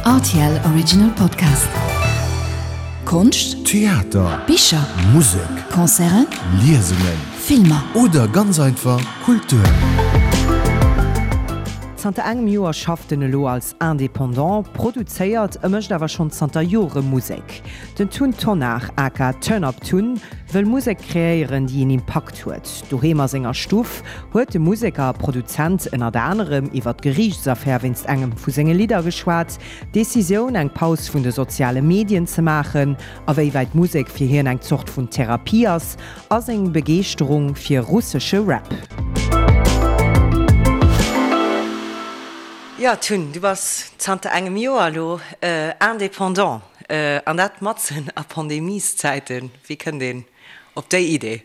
Rtl Original Podcast. Konscht, Theater, Bicher, Musek, Concerten, Liesungen, Filmer. Oder ganz einfach Kultur. Zanter engem Joer schafft en elo als Indépendant, produzéiert e mécht awer schonn zanter Jore Musek. Den Tun Tonnar aka Turn Up Tun wëll Musek kreéieren, déi een Impakt huet. Doheem a senger Stuff huet de Museker a Produzent ënnert anerem iwwer d'Geriichtsaffär wéinst engem vu senge Lidder geschwat, d'Decisioun eng Paus vun de soziale Medien ze maachen, a wéi wäit Musek fir hien eng Zort vun Therapie ass, a seng Begeeschterung fir russesche Rap. Jo Tun, du bass zanter engem Joer elo Indépendant, an dat matzen a Pandemieszäiten. Wéi kënnt een op déi Idee?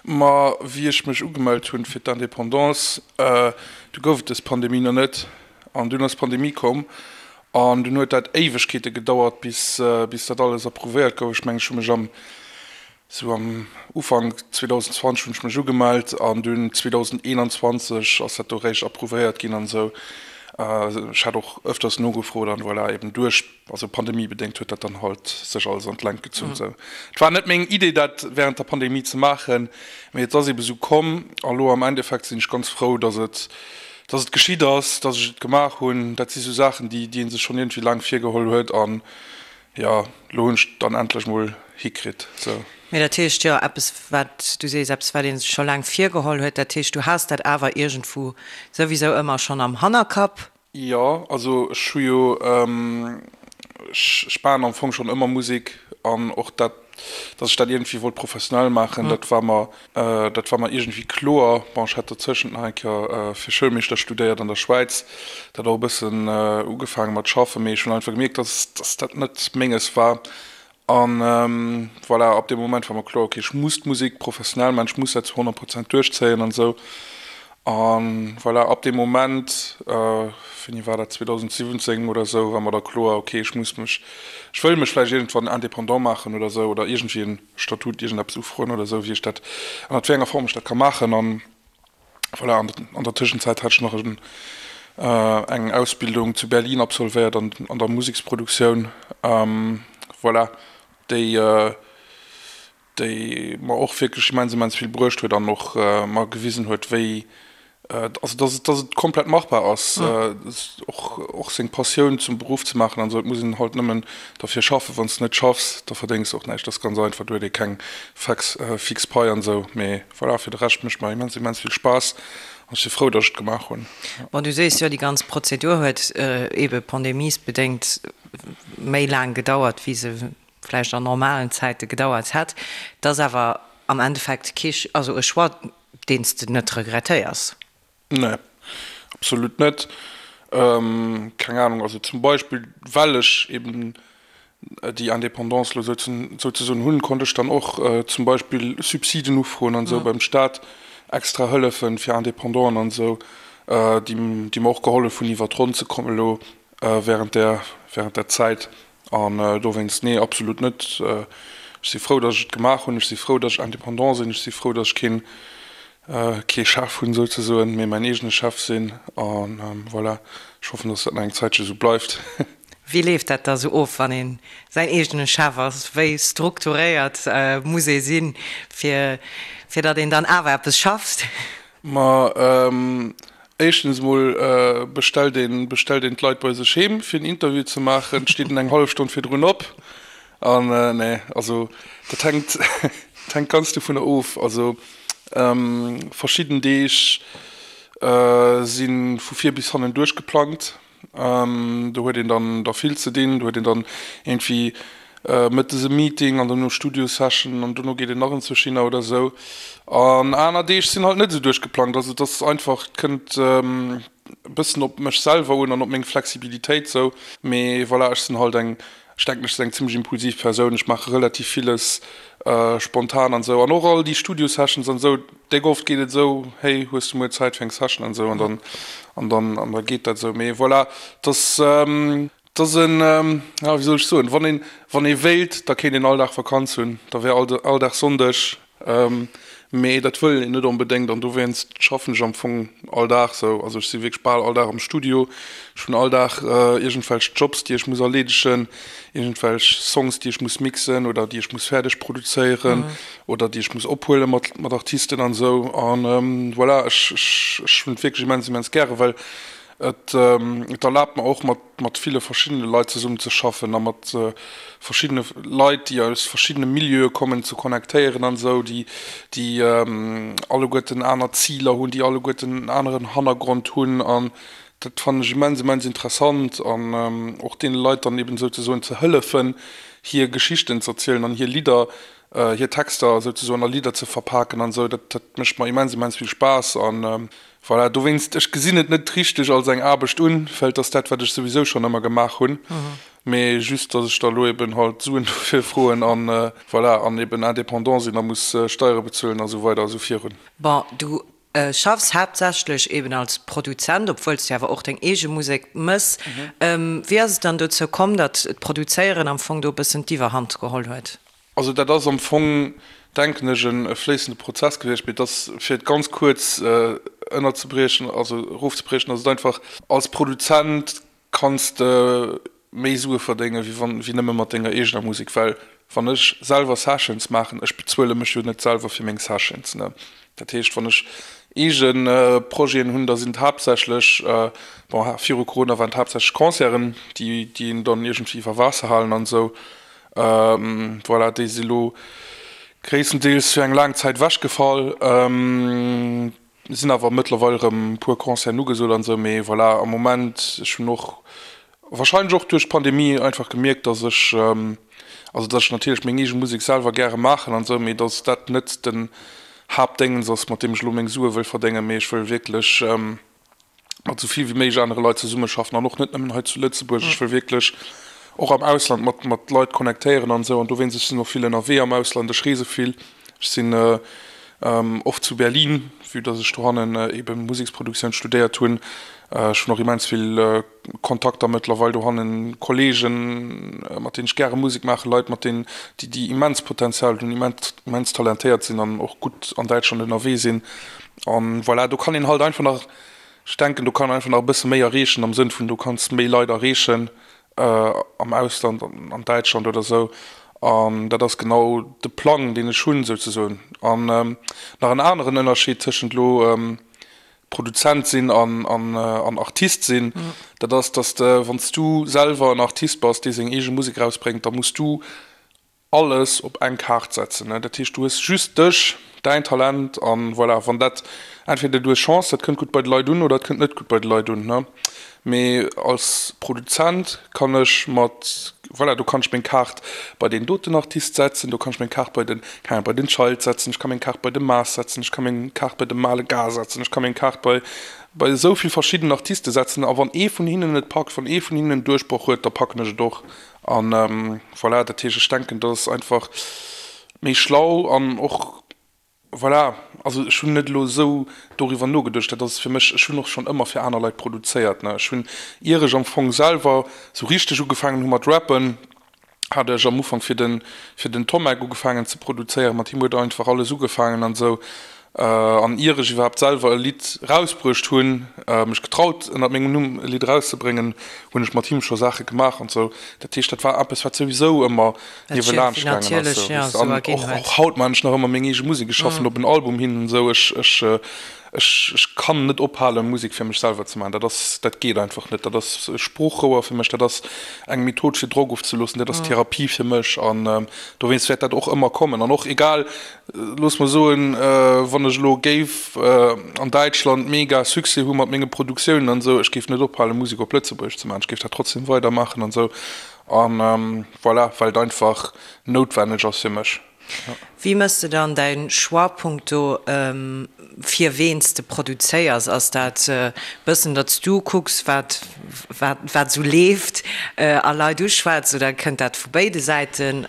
Ma wéi ech mech ugemellt hunn fir d'Indépendance, du gouf et dës Pandemie nach net. An dunn ass d'Pandemie komm an dunn huet dat Éiwegkeete gedauert, bis bis dat alles approuvéiert gouf. Ech mengen, ech hu mech am sou am Ufank 2020 hunn ech mech ugemellt an dunn 2021 ass dat do réischt approuvéiert ginn an esou. Ech hat och ëfters nogefrot an voilà, eben duerch. Also pandemiebedéngt huet dat dann halt sech alles an d'Längt gezunn. Sou, et war net meng Idee dat während der Pandemie ze maachen, mee et ass ebe sou komm. A lo am Endeffekt sinn ech ganz frou, dass et, dass et geschitt ass, dass ech et gemaach hunn. Dat si sou Saachen, déi, déi ee sech schonn iergendwéi laang virgeholl huet an jo, lo hunn ech et dann endlech mol hikritt. Sou. Mee dat heescht jo eppes wat, du sees eppes wat ee sech scho laang virgeholl huet, dat heescht du has dat awer iergendwou souwisou ëmmer schonn am Hannerkapp? Jo, also ech hu jo, ech maachen am Fong schonn ëmmer Musek an och dat, datt ech dat iergendwéi wollt professionell maachen, dat war mer, dat war mer iergendwéi kloer. Bon, ech hat dozëschent nach eng Kéier fir Schoulmeeschter studéiert an der Schwäiz, dat och e bëssen ugefaange mat schaffen, mee ech hunn einfach gemierkt, datt, datt dat net menges war An voilà, ab deem Moment war mer kloer, okay, ech muss d'Musek professionell maachen, ech muss dat zu 100 Prozent duerchzéien an esou. An voilà, ab deem Moment, wéini war dat, 2017 oder esou, war mer da kloer, okay, ech muss mech, ech wëll mech vläicht iergendwann indépendant maachen oder esou oder iergendwéi en Statut, iergendeppes ufroen oder esou, wéi ech dat, ënnert wéi enger Form ech dat ka maachen. An Voilà, an der Tëschenzäit hat ech nach eng Ausbildung zu Berlin absolvéiert an an der Museksproduktioun. Voilà, déi déi mer och wierklech immens immens vill bruecht huet an och mer gewisen huet, wéi also dass et dass et komplett machbar ass, och och seng Passioun zum Beruff ze maachen an esou. Et muss een halt nëmmen derfir schaffen. Wann s de net schaffs, da verdéngs de och näischt. Dat ass ganz einfach, do huet ee keng fex fix Pai an esou, mee Voilà, fir de Rescht mécht mer immens immens vill Spaass an ech si frou, dass ech et gemaach hunn. Bon, du sees jo, déi ganz Prozedur huet eebe pandemiesbedéngt méi laang gedauert, wéi se vläicht an normalen Zäite gedauert hätt. Et ass awer am Endeffekt kee, also e Choix, deen s de net regrettéiers. Nee, absolut net. Keng Ahnung, also zum Beispill well ech eben déi Indépendance elo souzesoen hunn, konnt ech dann och zum Beispill Subsiden ufroen an esou beim Staat, extra Hëllefen fir Indépendanten an esou, déi mer och gehollef hunn iwwer d'Ronn ze kommen elo während där während där Zäit. An dowéinst, nee, absolut net. Ech si frou, datt ech et gemaach hunn. Ech si frou, datt ech indépendant sinn. Ech si frou, datt ech keen, kee Chef hunn souzesoen, mee mäin eegene Chef sinn. A voilà, ech hoffen, datt dat nach eng Zäitche sou bleift. Wéi leeft dat da sou of, wann ee säin eegene Chef ass? Wéi strukturéiert muss ee sinn, fir, fir datt een dann awer eppes schafft? Ma éischtens emol bestellt een bestellt een d'Leit bei sech heem fir en Interview ze maachen, steet en eng hallef Stonn virdrun op an nee, also dat hänkt dat hänkt ganz dovunner of. Also verschidden Deeg si vu vir bis hannen duerchgeplangt. Do huet een dann da vill ze dinn, do huet een dann iergendwéi mëttes e Meeting an dono Studio-Session an dono geet een nach enzwousch hinner oder esou. An aner Deeg sinn halt net esou duerchgeplangt. Also et ass einfach, et kënnt e bëssen op mech selwer un an op meng Flexibilitéit esou. Mee voilà, ech sinn halt eng, ech denken ech sinn eng zimmlech impulsiv Persoun, ech maache relativ villes spontan an esou. An och all déi Studio-Sessions an esou, Déck oft geet et esou, hey, hues du muer Zäit fir eng Session an esou an dann an dann an da geet dat esou. Mee voilà, et ass et ass en, ja wéi soll ech soen, wann een wann ee wéilt, da kéint een all Dag Vakanz hunn, da wär all all Dag Sonndeg. Mee dat wëll een net onbedéngt an dowéinst schaffen ech am Fong all Dag sou. Also ech si wierklech bal all Dag am Studio. Ech hunn all Dag iergendwelch Jobs, déi ech muss erleedegen, iergendwelch Songs, déi ech muss mixen oder déi ech muss fäerdeg produzéieren oder déi ech muss ophuele mat mat Artisten an esou. An voilà, ech ech ech hunn et wierklech immens immens gäre well et et erlaabt mer och mat mat ville verschiddene Leit zesummen ze schaffen a mat verschiddene Leit, déi aus verschiddene Milieue kommen, ze connectéieren an esou, déi, déi alleguerten aner Ziler hunn, déi alleguerten en aneren Hannergrond hunn. An dat fannen ech immens, immens interessant an och deene Leit dann eben souzesoen ze hëllefen, hir Geschichten z'erzielen an hir Lidder, hir Texter souzesoen a Lidder ze verpaken an esou. Dat, dat mécht mer immens, immens vill Spaass an Voilà, dowéinst, ech gesinn et net richteg als eng Aarbecht un, well et ass dat, wat ech souwisou schonn ëmmer gemaach hunn, mee just, dass ech da lo eben halt Suen dofir froen an voilà, an eben indépendant sinn a muss Steiere bezuelen a sou weider a sou virun. Bon, du schaffs haaptsächlech eben als Produzent, obwuel s du awer och deng eege Musek mëss. Wéi ass et dann dozou komm, datt d'Produzéieren am Fong do e bëssen d'Iwwerhand geholl huet? Also dat ass am Fong, denken ech, e fléissende Prozess gewiescht. Mee et ass, fir et ganz kuerz ënnerzebriechen, also erofzebriechen, ass et einfach, als Produzent kanns de méi Sue verdéngen, wéi wann, wéi nëmme mat denger eegener Musek. Well wann ech selwer Sessions maachen, ech bezuele mech jo net selwer fir meng Sessions, ne. Dat heescht, wann ech eege Projeten hunn, da sinn et haaptsächlech, bon, viru Corona waren et haaptsächlech Concerten, déi, déi een dann iergendwéi iwwer Waasser halen an esou. Voilà, déi si lo gréisstendeels fir eng laang Zäit ewechgefall. Sinn awer mëttlerweil erëm e puer Concerten ugesot an esou, mee voilà, am Moment, ech hunn och warscheinlech och duerch d'Pandemie einfach gemierkt, dass ech, also dass ech natierlech meng eege Musek selwer gäre maachen an esou, mee dass dat net den Haaptdéngens ass, mat deem ech elo meng Sue wëll verdéngen, mee ech wëll wierklech, mat esou vill wéi méiglech anere Leit zesummeschaffen an och net nëmmen hei zu Lëtzebuerg. Ech wëll wierklech och am Ausland mat mat Leit connectéieren an esou an dowéinst, ech sinn och vill ënnerwee am Ausland, ech reese vill, ech sinn oft zu Berlin, vue dass ech dohannen ebe Museksproduktioun studéiert hunn. Ech hunn och immens vill Kontakter mëttlerweil dohannen, Kollegen, mat deenen ech gäre Musek maachen, Leit mat deenen, déi déi immens Potenzial hunn, immens immens talentéiert sinn an och gutt an Däitschland ënnerwee sinn. An voilà, do kann een halt einfach nach, ech denken, do kann een einfach nach e bësse méi erreechen, am Sënn vun, du kanns méi Leit erreechen am Ausland, an Däitschland oder esou. An dat ass genau de Plang, deen ech hunn, souzesoen. An nach en aneren Ënnerscheed tëschent elo Produzent sinn an an Artist sinn, dat ass, dass de, wann s du selwer en Artist bass, dee seng eege Musek erausbréngt, da muss du alles op eng Kaart setzen. Dat heescht, du hues just dech, däin Talent an voilà. Wann dat, entweder du hues Chance, dat kënnt gutt bei de Leit un oder et kënnt net gutt bei de Leit un. Mee als Produzent kann ech mat, voilà, do kann ech meng Kaart bei deen doten Artist setzen, do kann ech meng Kaart bei den, keng Ahnung, bei den Child setzen, ech ka meng Kaart bei de Maas setzen, ech ka meng Kaart bei de Male Gars setzen, ech ka meng Kaart bei, bei esou vill verschidden Artiste setzen a wann ee vun hinnen et packt, wann ee vun hinnen en Duerchbroch huet, da packen ech et och. An voilà, dat heescht, ech denken, dat ass einfach méi schlau an och, voilà, also ech hunn net elo esou doriwwer nogeduecht, dat ass fir mech, ech hunn och schonn ëmmer fir aner Leit produzéiert, ne. Ech hunn, ier ech am Fong selwer esou richteg ugefaangen hu mat rappen, hat ech am Ufank fir den, fir den Tommek ugefaangen ze produzéieren, mat him huet einfach alles ugefaangen an esou. An ier ech iwwerhaapt selwer e Lidd rausbruecht hunn, mech getraut ënnert mengem Numm e Lidd erauszebréngen, hunn ech mat him scho Saache gemaach an sou. Dat heescht, dat war eppes, wat souwisou ëmmer niewelaanscht gaangen ass. Sou, weess de. An och, och haut maachen ech nach ëmmer meng eege Musek. Ech schaffen op en Album hin an sou. Ech, ech, ech, ech kann net ophalen, Musek fir mech selwer ze maachen. Dat ass, dat geet einfach net. Dat ass e Sproochrouer fir mech, dat ass eng Method fir Drock ofzeloossen, dat ass Therapie fir mech. An dowéinst wäert dat och ëmmer kommen. An och egal, Looss mer soen, wann ech elo géif an Däitschland mega Succès hu mat menge Produktiounen an esou, ech géif net ophalen, Musek op Lëtzebuergesch ze maachen. Ech géif dat trotzdem weidermaachen an esou. An voilà, well et einfach noutwenneg ass fir mech. Wéi méchs de dann däi Choix punkto fir ween s de produzéiers? Ass dat e bëssen, datt s du kucks, wat wat esou leeft a Leit uschwätz, oder kënnt dat vu béide Säiten,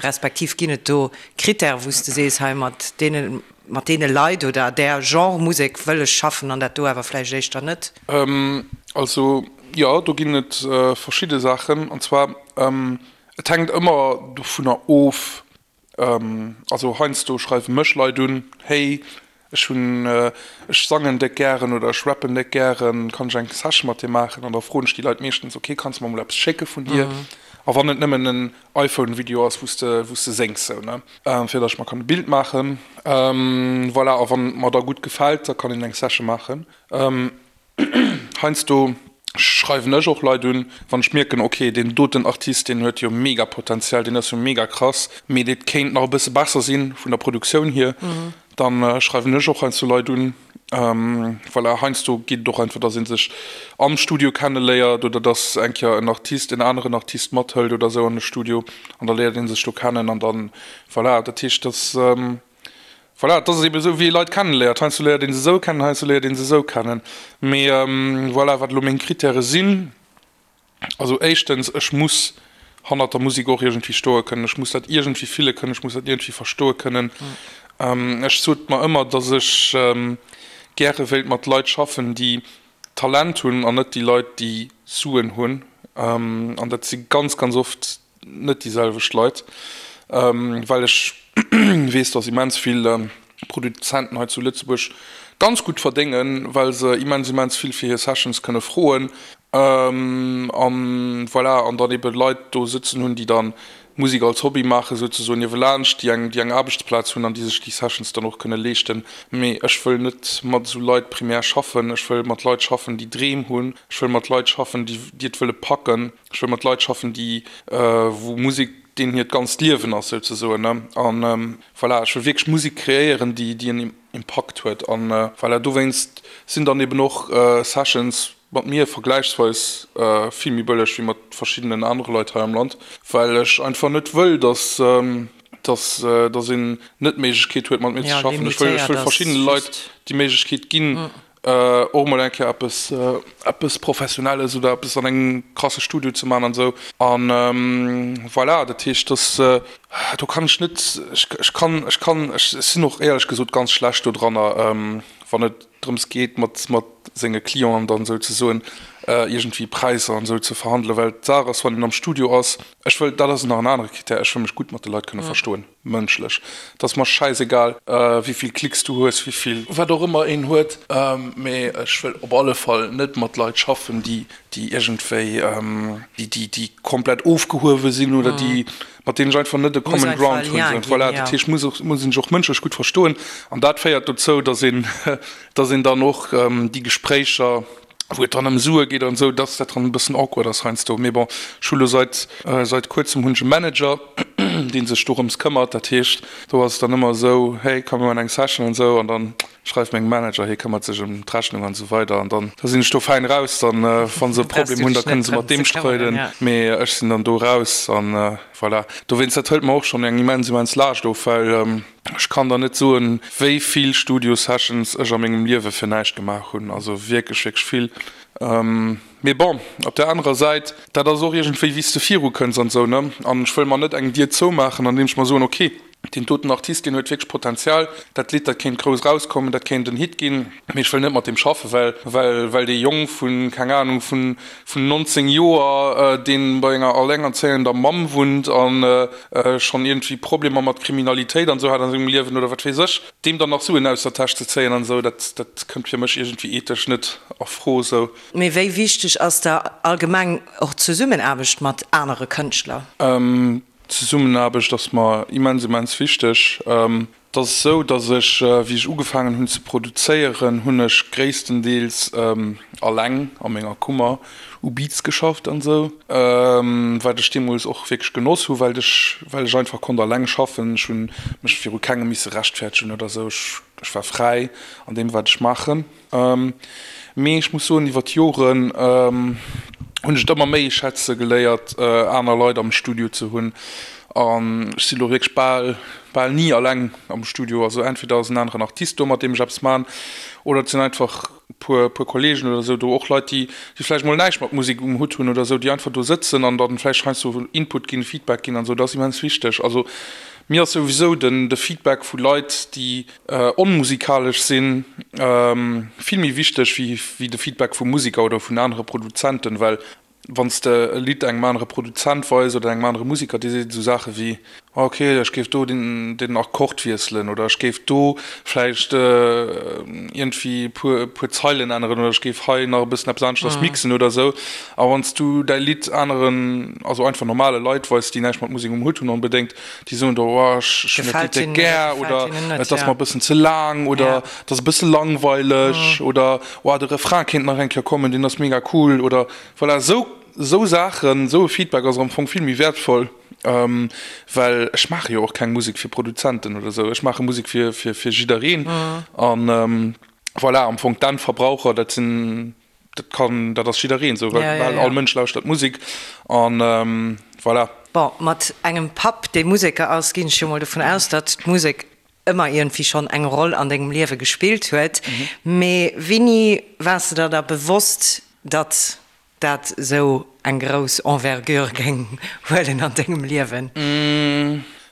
respektiv ginn et do Critèrë wou s de sees, hei mat deene mat deene Leit oder där Genre Musek wëll ech schaffen an dat do awer vläicht éischter net? Also jo, do ginn et verschidde Saachen. An zwar, et hänkt ëmmer dovunner of. Also heiansdo schreiwe mech Leit un, Hey, ech hunn, ech sangen déck gären oder ech rappen déck gären, kann ech eng Session mat dir maachen? An da froen ech déi Leit meeschtens, Ok, kanns de mer mol eppes schécke vun dir? A wann et nëmmen en iPhone-Video ass, wou s de, wou s de séngs, sou, ne? Fir datt ech mer kann e Bild maachen. Voilà, a wann et mer da gutt gefält, da kann een eng Session maachen. Heiansdo schreiwen ech och Leit un, wann ech mierken, ok, deen doten Artist, deen huet jo mega Potenzial, deen ass jo mega krass, mee dee kéint nach e bësse besser sinn vun der Produktioun hier, dann schreiwen ech och heiansdo Leit un. Voilà, heiansdo geet et och einfach, dass ee sech am Studio kenneléiert oder dass eng Kéier en Artist en aneren Artist mathëlt oder esou an de Studio an da léiert ee sech do kennen an dann, voilà, dat heescht, dass. Voilà, et ass eben esou, wéi ee Leit kenneléiert. Heiansdo léiert ee se esou kennen, heiansdo léiert ee se esou kennen. Mee voilà, wat elo meng Krittäre sinn, also éischtens, ech muss hannert der Musek och iergendwéi stoe kënnen. Ech muss dat iergendwéi fille kënnen, ech muss dat iergendwéi verstoe kënnen. Ech sot mer ëmmer, datt ech gäre wéilt mat Leit schaffen, déi Talent hunn an net déi Leit, déi Suen hunn. An dat si ganz, ganz oft net déi selwecht Leit, well ech weess, dass immens vill Produzenten hei zu Lëtzebuerg ganz gutt verdéngen, well se immens, immens vill fir hir Sessions kënne froen an voilà, an dann ebe Leit do sëtzen hunn, déi dann Musek als Hobby maachen, souzesoen niewelaanscht, déi eng, déi eng Aarbechtsplaz hunn an déi sech déi Sessions dann och kënne leeschten. Mee ech wëll net mat esou Leit primär schaffen. Ech wëll mat Leit schaffen, déi Dreem hunn. Ech wëll mat Leit schaffen, déi, déi et wëlle packen. Ech wëll mat Leit schaffen, déi, wou Musek deenen hiert ganzt Liewen ass souzesoen, ne. An voilà, ech wëll wierklech Musek kreéieren, déi, déi en Impakt huet. An voilà, dowéinst sinn dann eben och Sessions mat mir vergläichsweis vill méi bëlleg wéi mat verschiddenen anere Leit hei am Land, well ech einfach net wëll, dass, dass, dass een net d'Méiglechkeet huet mat mir ze schaffen. Ech wëll, ech wëll verschiddene Leit déi Méiglechkeet ginn, och mol eng Kéier eppes, eppes Professionelles oder eppes an engem krasse Studio ze man an esou. An voilà, dat heescht, dass, do kann ech net, ech, ech kann, ech kann, ech sinn och éierlech gesot ganz schlecht dodranner, wann et drëms geet, mat, mat senge Clienten dann souzesoen iergendwéi Präisser an esou ze verhandelen, well d'Saach ass, wann een am Studio ass, ech wëll, dat ass nach en anere Krittär, ech wëll mech gutt mat de Leit kënne verstoen. Mënschlech. Et ass mer schäisegal, wéivill Klicks du hues, wéivill wat och ëmmer een huet, mee ech wëll op alle Fall net mat Leit schaffen, déi déi iergendwéi, déi déi déi komplett ofgehuewe sinn oder déi mat deenen ech einfach net e common ground hunn. Voilà, dat heescht, muss och muss een sech och mënschlech gutt verstoen an dat féiert dozou, datt een datt een dann och déi Gespréicher, wou et dann ëm Sue geet an esou, dass dat dann e bëssen awkward ass heiansdo. Mee bon, ech hu lo seit, seit kuerzem hunn ech e Manager, dee sech dorëms këmmert. Dat heescht, do ass et dann ëmmer esou, hey, komm mir maachen eng Session an esou. An dann schreift mengem Manager, hie këmmert sech ëm d'Rechnung an esou weider. An dann, da sinn ech do fäin raus. Dann, wa se e Problem hunn, da kënne se mat deem streiden, mee ech sinn dann do raus an voilà. Dowéinst, dat hëlt mer och schonn eng immens, immens Laascht of, well, Ech kann der net soen, wéi vill Studio-Sessions ech a mengem Liewe fir näischt gemaach hunn, also wierklech, wierklech vill. Mee bon, op där anerer Säit, dat ass och iergendwéi, wéi s de virukënns an esou, ne? An ech wëll mer net eng Dier zoumaachen, andeem ech mer soen, ok, deen doten Artist, deen huet wierklech Potenzial, dat Lidd, dat kéint grouss erauskommen, dat kéint en Hit ginn, mee ech wëll net mat deem schaffen, well, well, well dee Jong vu, keng Anung, vun, vun 19 Joer, dee bei enger allengerzéiender Mamm wunnt an schonn iergendwéi Problemer mat Kriminalitéit an esou hat an sengem Liewen oder wat weess ech, deem dann nach Suen aus der Täsch ze zéien an esou, dat, dat kënnt fir mech iergendwéi ethesch net a Fro esou. Mee wéi wichteg ass der allgemeng och d'Zesummenaarbecht mat anere Kënschtler? D'Zesummenaarbecht ass mer immens, immens wichteg. Et ass esou, datt ech, wéi ech ugefaangen hunn ze produzéieren, hunn ech gréisstendeels alleng a menger Kummer u Beats geschafft an esou, wat ech deemools och wierklech genoss hu, well ech well ech einfach konnt alleng schaffen. Ech hu mech viru kengem misse rechtfäertegen oder esou, ech war fräi an deem wat ech maachen. Mee ech muss soen, iwwer d'Joren hunn ech et ëmmer méi schätze geléiert, aner Leit am Studio ze hunn. An ech si lo wierklech bal, bal ni alleng am Studio. Also entweder ass en aneren Artist do, mat deem ech eppes man, oder et sinn einfach e puer, puer Kollegen oder esou do, och Leit, déi, déi vläicht mol näischt mat Musek um Hutt hunn oder esou, déi einfach do sëtzen an dann vläicht heiansdo Input ginn, Feedback ginn an esou. Dat ass immens wichteg. Also mir ass souwisou den, de Feedback vu Leit, déi Onmusikalesch sinn vill méi wichteg wéi de Feedback vu Musiker oder vun anere Produzenten, well wann s de e Lidd engem anere Produzent weis oder engem anere Musiker, dee seet esou Saache wéi, Ok, ech géif do den Akkord wiesselen oder ech géif do vläicht iergendwéi e puer puer Zeilen änneren oder ech géif hei nach e bëssen eppes aneschters mixen oder esou. A wann s du däi Lidd aneren, also einfach normale Leit weis, déi näischt mat Musek um Hutt hunn onbedéngt, déi soen do, oh ech hunn dat Lidd déck gär oder et ass mer e bëssen ze laang oder et ass e bësse langweileg oder oh de Refrain kéint nach eng Kéier kommen, deen ass mega cool oder voilà, esou esou Saachen, esou e Feedback ass am Fong vill méi wäertvoll. Well ech maache jo och keng Musek fir Produzenten oder esou. Ech maache Musek fir, fir, fir jiddereen. An voilà, am Fong d'Endverbraucher, dat sinn, dat kann, dat ass jiddereen esou, well bal all Mënsch lauschtert Musek. An voilà. Bon, mat engem Papp, dee Museker ass, ginn ech jo mol dovun aus, datt d'Musek ëmmer iergendwéi schonn eng Roll an dengem Liewe gespillt huet. Mee wéini waars de der da bewosst, datt dat esou eng grouss Envergure géing huelen an dengem Liewen?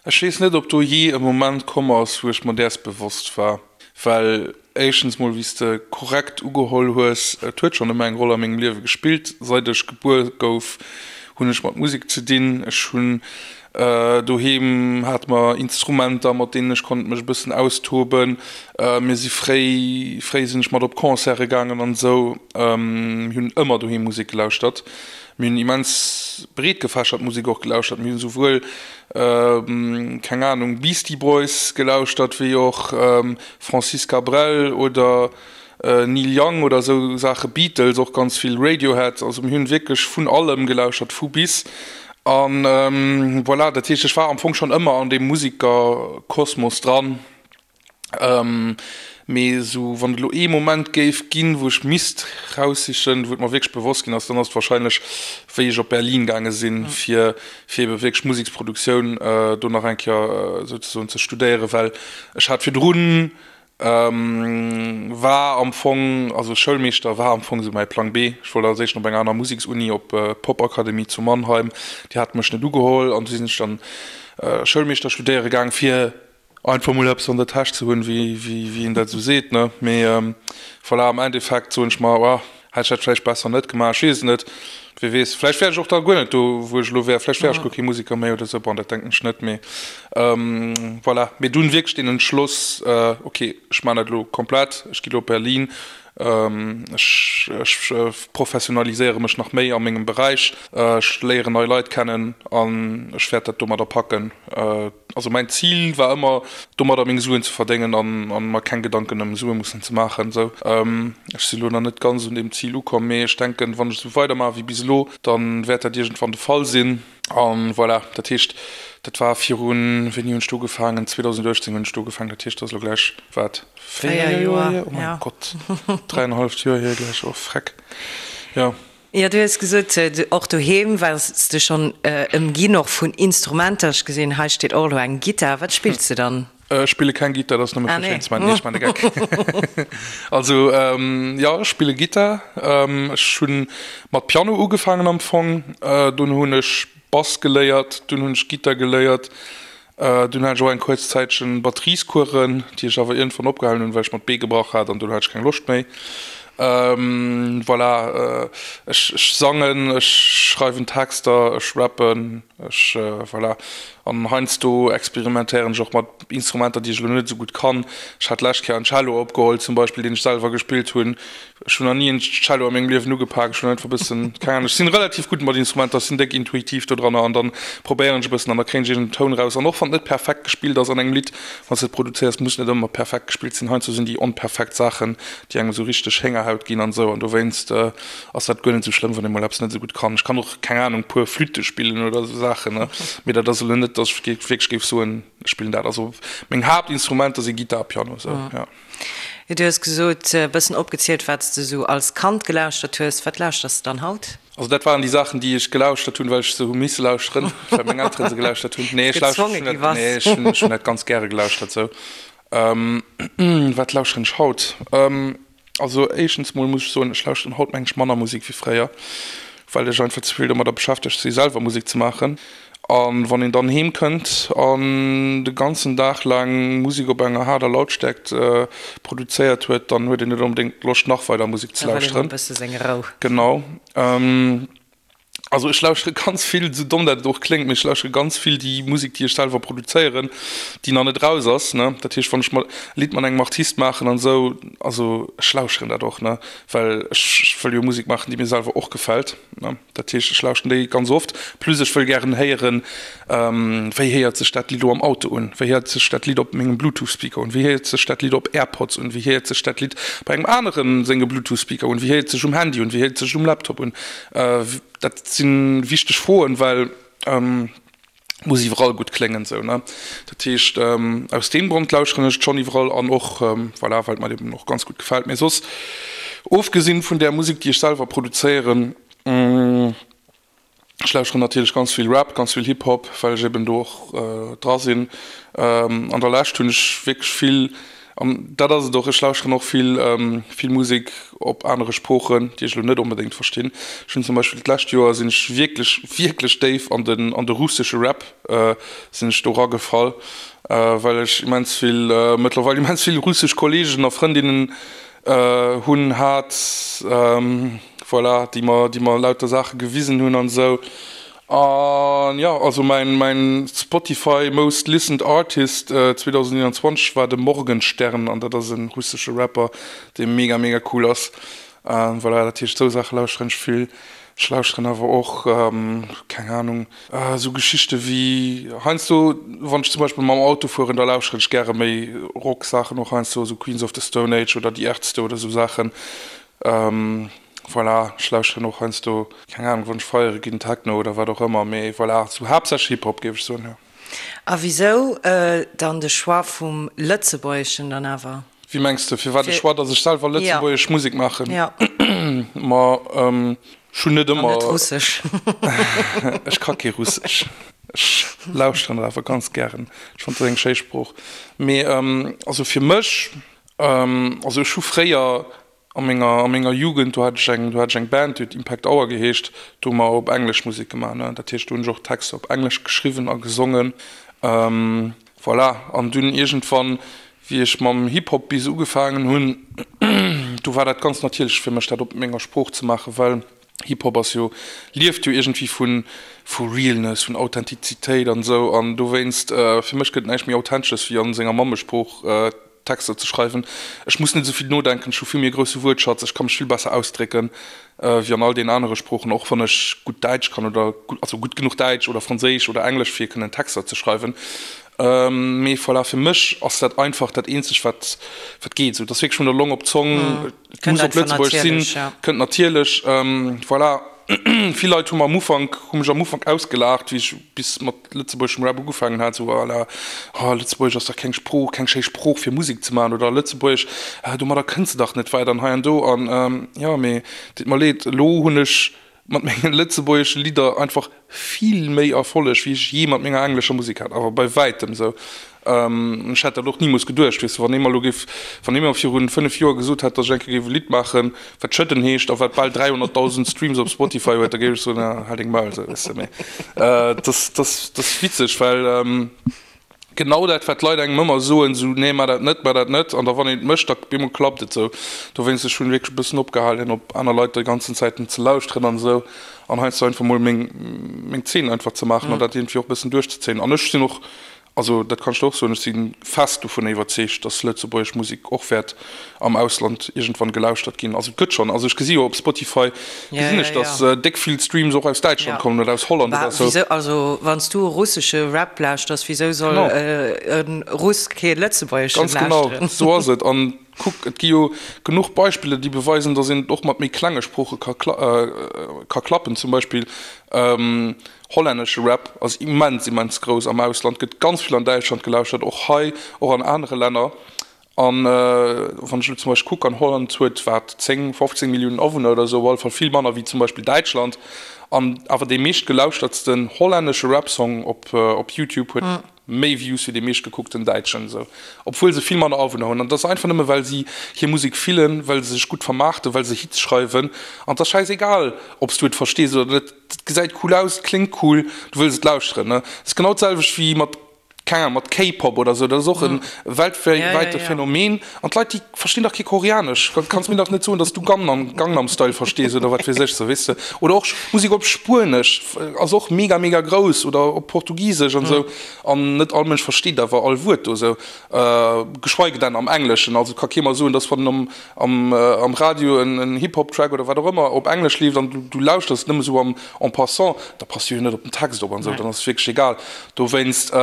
Ech weess net, ob do jee e Moment komm ass, wou ech mer däers bewosst war. Well éischtens mol, wéi s de korrekt ugeholl hues, et huet schonn ëmmer eng Roll a mengem Liewe gespillt. Seit ech gebuer gouf, hunn ech mat Musek ze dinn. Ech hunn Doheem hate mer Instrumenter, mat deenen ech konnt mech e bëssen austoben. Mir si fréi, fréi sinn ech mat op Concerte gaangen an esou. Mir hunn ëmmer doheem Musek gelauschtert. Mir hunn immens breetgefächert Musek och gelauschtert. Mir hunn souwuel, keng Anung, Beastie Boys gelauschtert, wéi och Francis Cabrel oder Neil Young oder esou Saache, Beatles och ganz vill, Radiohead, also mir hunn wierklech vun allem gelauschert, vu bis. An voilà, dat heescht ech war am Fong schonn ëmmer an deem Musikerkosmos dran. Mee esou wann et elo ee Moment géif ginn, wou ech misst raussichen, wou et mer wierklech bewosst ginn ass, dann ass et wahrscheinlech wéi ech op Berlin gaange sinn, fir fir ebe wierklech Museksproduktioun do nach eng Kéier souzesoen ze studéieren, well ech hat virdrun War am Fong, also Schoulmeeschter war am Fong esou mäi Plang B. Ech wollt als éischt op eng aner Museksuni, op d'Popakademie zu Mannheim. Déi hate mech net ugeholl an du sinn ech dann Schoulmeeschter studéiere gaang, fir einfach mol eppes an der Täsch ze hunn, wéi een dat esou seet, ne. Mee voilà, am Endeffekt soen ech mer, oh, Hätt ech dat vläicht besser net gemaach, ech weess et net. Wie weess, vläicht wär ech och da guer net do, wou ech elo wär. Vläicht wär ech guer kee Musiker méi oder esou. Bon, dat denken ech net, mee voilà. Mee dunn wierklech deen Entschloss, ok, ech maachen dat elo komplett, ech gi elo op Berlin, ech ech professionaliséiere mech nach méi a mengem Beräich, ech léieren nei Leit kennen an ech wäert dat domadder packen. Also mäin Zil war ëmmer domadder meng Suen ze verdéngen an an mer keng Gedanken ëm Sue mussen ze maachen esou. Ech si lo nach net ganz un deem Zil ukomm, mee ech denken wann ech esou weider maache wéi bis elo, dann wäert dat iergendwann de Fall sinn. An voilà, dat heescht dat war virun, wéini hunn ech do ugefaangen, 2018 hunn ech do ugefaangen, dat heescht dat ass elo gläich wat, 4 Joer hier? Oh mäin Gott, dräienhalleft Joer hier gläich, oh freck, jo. Jo, du hues gesot, och doheem waars de schonn ëmginn och vun Instrumenter. Ech gesinn, hei steet och elo eng Gittar. Wat spills de dann? Ech spille keng Gittar, dat ass nëmme fir schéin ze maachen. Nee, ech maachen de Geck. Also, jo, ech spille Gittar. Ech hu mat Piano ugefaangen am Fong. Dunn hunn ech Bass geléiert, dunn hunn ech Gittar geléiert. Dunn hat ech och eng kuerz Zäitchen Batteriescoursen, déi ech awer iergendwann opgehalen hunn, well ech mer d'Bee gebrach hat an dunn hat ech keng Loscht méi. Voilà, ech sangen, ech schreiwen Texter, ech rappen, ech, voilà. An heiansdo experimentéieren ech och mat Instrumenter, déi ech elo net esou gutt kann. Ech hat d'lescht Kéier en Cello opgeholl zum Beispill, deen ech selwer gespillt hunn. Ech hunn nach ni en Cello a mengem Liewen ugepak. Ech hunn einfach e bëssen, keng Ahnung, ech sinn relativ gutt mat Instrumenter, ech sinn déck intuitiv do dranner an dann probéieren ech e bëssen an da kréien ech iergend en Toun raus. An och wann et net perfekt gespillt ass an engem Lidd, wann s de et produzéiers, muss net ëmmer perfekt gespillt sinn. Heiansdo sinn déi onperfekt Saachen, déi engem esou richteg Héngerhaut ginn an esou an dowéinst ass dat guer net esou schlëmm, wann ee mol eppes net esou gutt kann. Ech kann och, keng Ahnung, puer Flütte spillen oder esou Saachen, ne, mee dat ass elo net, dass ech wierklech géif soen, ech spillen dat. Also meng Haaptinstrumenter si Gittar a Piano, esou, jo. Du hues gesot, e bëssen opgezielt, wat s de sou als Kand gelauschtert hues. Wat lauschters de dann haut? Also dat waren déi Saachen, déi ech gelauschtert hunn, well ech se hu misse lauschteren, well meng Elteren se gelauschtert hunn. Nee, ech lauschteren dat, nee, ech hunn, ech hunn dat ganz gäre gelauschtert sou. Wat lauschteren ech haut? Also éischtens mol muss ech soen, ech lauschteren haut meng ech manner Musek wéi fréier, well ech einfach ze vill domadder beschäftegt si selwer Musek ze maachen. A wann een dann heem kënnt an de ganzen Dag laang Musek op enger haarder Lautstärkt produzéiert huet, dann huet een net onbedéngt Loscht nach weider Musek ze lauschteren. Da wëll een och e bësse seng Rou. Genau. Also ech lauschtere ganz vill, esou domm dat et och kléngt, mee ech lauschtere ganz vill déi Musek, déi ech selwer produzéieren, déi nach net raus ass, ne. Dat heescht, wann ech e Lidd mat engem Artist maachen an esou, also ech lauscheren dat och, ne, well ech wëll jo Musek maachen, déi mir selwer och gefält, ne. Dat heescht, ech lauschten déi ganz oft. Plus ech wëll gären héieren, wéi héiert sech dat Lidd elo am Auto un, wéi héiert sech dat Lidd op mengem Bluetooth-Speaker un, wéi héiert sech dat Lidd op AirPods un, wéi héiert sech dat Lidd bei engem anere senge Bluetooth-Speaker un, wéi héiert sech um Handy un, wéi héiert sech um Laptop un. Dat si wichteg Froen, well et muss iwwerall gutt kléngen esou, ne. Dat heescht, aus deem Grond lauschteren ech et schonn iwwerall an och, voilà, well et mer eben och ganz gutt gefält. Mee soss, ofgesinn vun där Musek, déi ech selwer produzéieren, ech lauschteren natierlech ganz vill Rap, ganz vill Hip-Hop, well ech eben do och dra sinn. An der Lescht hunn ech wierklech vill, an dat ass et och, ech lauschteren och vill, vill Musek op anere Sproochen, déi ech elo net onbedéngt verstinn. Ech hunn zum Beispill d'lescht Joer sinn ech wierklech, wierklech déif an den, an de russesche Rap sinn ech do eragefall, well ech immens vill, mëttlerweil immens vill russesch Kolleegen a Frëndinnen hunn, hat, voilà, déi mer, déi mer lauter Saache gewisen hunn an esou. An jo, also mäin, mäin Spotify Most Listened Artist 2021 war de Morgenstern an dat ass e russesche Rapper, dee mega, mega cool ass. Voilà, dat heescht, esou Saache lauschteren ech vill. Ech lauschteren awer och, keng Ahnung, esou Geschichte wéi heiansdo, wann ech zum Beispill mam Auto fueren, da lauschteren ech gäre méi Rock-Saachen och heiansdo, esou Queens of the Stone Age oder Die Ärzte oder esou Saachen. Voilà, ech lauschteren och heiansdo, keng Ahnung, wann ech feiere ginn, Techno oder wat och ëmmer, mee voilà, sou haaptsächlech Hip-Hop géif ech soen, jo. A wisou dann de Choix vum Lëtzebuergeschen dann awer? Wéi mengs de, firwat de Choix, datt ech selwer lëtzebuergesch Musek maachen? Jo. Ma ech hunn net ëmmer. An net Russesch. Ech ka kee Russesch. Ech lauschteren et awer ganz gären. Ech fannen, et ass eng schéi Sprooch. Mee also fir mech, also ech hu fréier A menger, a menger Jugend, do hat ech eng, do hat ech eng Band, déi huet Impact Hour geheescht, do hu mer op Englesch Musek gemaach, ne. Dat heescht, do hunn ech och Texter op Englesch geschriwwen a gesongen. Voilà, an dunn iergendwann, wéi ech mam Hip-Hop bis ugefaangen hunn, do war dat ganz natierlech fir mech, dat op menger Sprooch ze maachen, well Hip-Hop ass jo, lieft jo iergendwéi vu, vu Realness, vun Authentizitéit an esou. An dowéinst, fir mech gëtt näischt méi Authentesches, wéi a senger Mammesprooch Texter ze schreiwen. Ech muss net esou vill nodenken, ech hu vill méi e grousse Wuertschatz, ech ka mech vill besser ausdrécken wéi an all deenen anere Sproochen, och wann ech gutt Däitsch kann oder also gutt genuch Däitsch oder Franséisch oder Englesch fir kënnen Texter ze schreiwen. Mee voilà, fir mech ass dat einfach dat eenzegt wat wat geet esou. Et ass wierklech vun der Long op d'Zong, et muss op Lëtzebuergesch sinn, kënnt natierlech. Voilà. Vill Leit hu mer am Ufank, hu mech am Ufank ausgelaacht, wéi ech bis mat lëtzebuergeschem Rap ugefaangen hat, sou à la, oh Lëtzebuergesch ass dach keng Sprooch, keng schéi Sprooch fir Musek ze maachen oder Lëtzebuergesch, domadder kënns de dach net wäit an hei an do an jo, mee deet mer leed, elo hunn ech mat menge lëtzebuergesche Lidder einfach vill méi Erfolleg wéi ech jee mat menger englescher Musek hat, awer bei wäitem sou. Ech hätt dat och nimools geduecht, weess de, wann ee mer elo géif, wann ee mer virun 5 Joer gesot hätt, datt ech eng Kéier géif e Lidd maachen, wat Schëdden heescht a wat bal 300.000 Streams op Spotify huet, da géif ech soen, ah, hal deng Maul, sou, weess de. Mee et ass, et ass, et ass witzeg, well genau dat, wat d'Leit engem ëmmer soen, sou, nee, maach dat net, maach dat net, an da wann een et mécht, da op eemol klappt et sou. Dowéinst, ech hunn wierklech e bëssen opgehalen, op aner Leit déi ganzen Zäiten ze lauschteren an esou. An heiansdo einfach mol meng, meng Zeen einfach ze maachen an dat iergendwéi och e bëssen duerchzezéien. An ech sinn och, also dat kann ech der och soen, ech si fest dovunner iwwerzeegt, dass lëtzebuergesch Musek och wäert am Ausland iergendwann gelauschtert ginn. Also et gëtt schonn, also ech gesi jo op Spotify, gesinn ech, dass déck vill Streams och aus Däitschland kommen oder aus Holland oder esou. Wisou, also wann s du e russesche Rap lauschters, wisou soll e Russ kee lëtzebuergeschen lauschteren? Ganz genau, esou ass et. An Kuck, et gi jo genuch Beispiller, déi beweisen, datt een et och mat méi klenge Sprooche ka ka klappen. Zum Beispill hollännesche Rap ass immens, immens grouss am Ausland, gëtt ganz vill an Däitschland gelauschtert, och hei, och an anere Länner. An wann ech elo zum Beispill kucken, Holland huet wat, 10, 15 Milliounen Awunner oder esou, op alle Fall vill manner wéi zum Beispill Däitschland. An awer dee meeschtgelauschtertsten hollännesche Rap-Song op op YouTube huet méi Views wéi dee meeschtgekuckten Däitschen esou, obwuel se vill manner Awunner hunn. An dat ass einfach nëmme well si hir Musek fillen, well se sech gutt vermaarten, well se Hits schreiwen. An et ass schäisegal, ob s du et verstees oder net, et gesäit cool aus, et kléngt cool, du wëlls et lauschteren. Et ass genau d'selwecht wéi mat. Keng Ahnung, mat K-Pop oder sou, dat ass och e weltwäite Phänomen. An d'Leit, déi verstinn dach kee Koreanesch. Kanns mir dach net soen, dass du Gangnam, Gangnam Style verstees oder wat weess ech, sou, weess de. Oder och Musek op Spuenesch ass och mega, mega grouss oder op Portugisesch an sou. An net all Mënsch versteet awer all Wuert do sou, geschweige denn am Engleschen. Also ka kee mer soen, dass wann am, am Radio en Hip-Hop-Track oder wat och ëmmer op Englesch leeft an du lauschters nëmme sou am en passant, da passt du jo net op den Text op an esou, dann ass et wierklech egal. Dowéinst,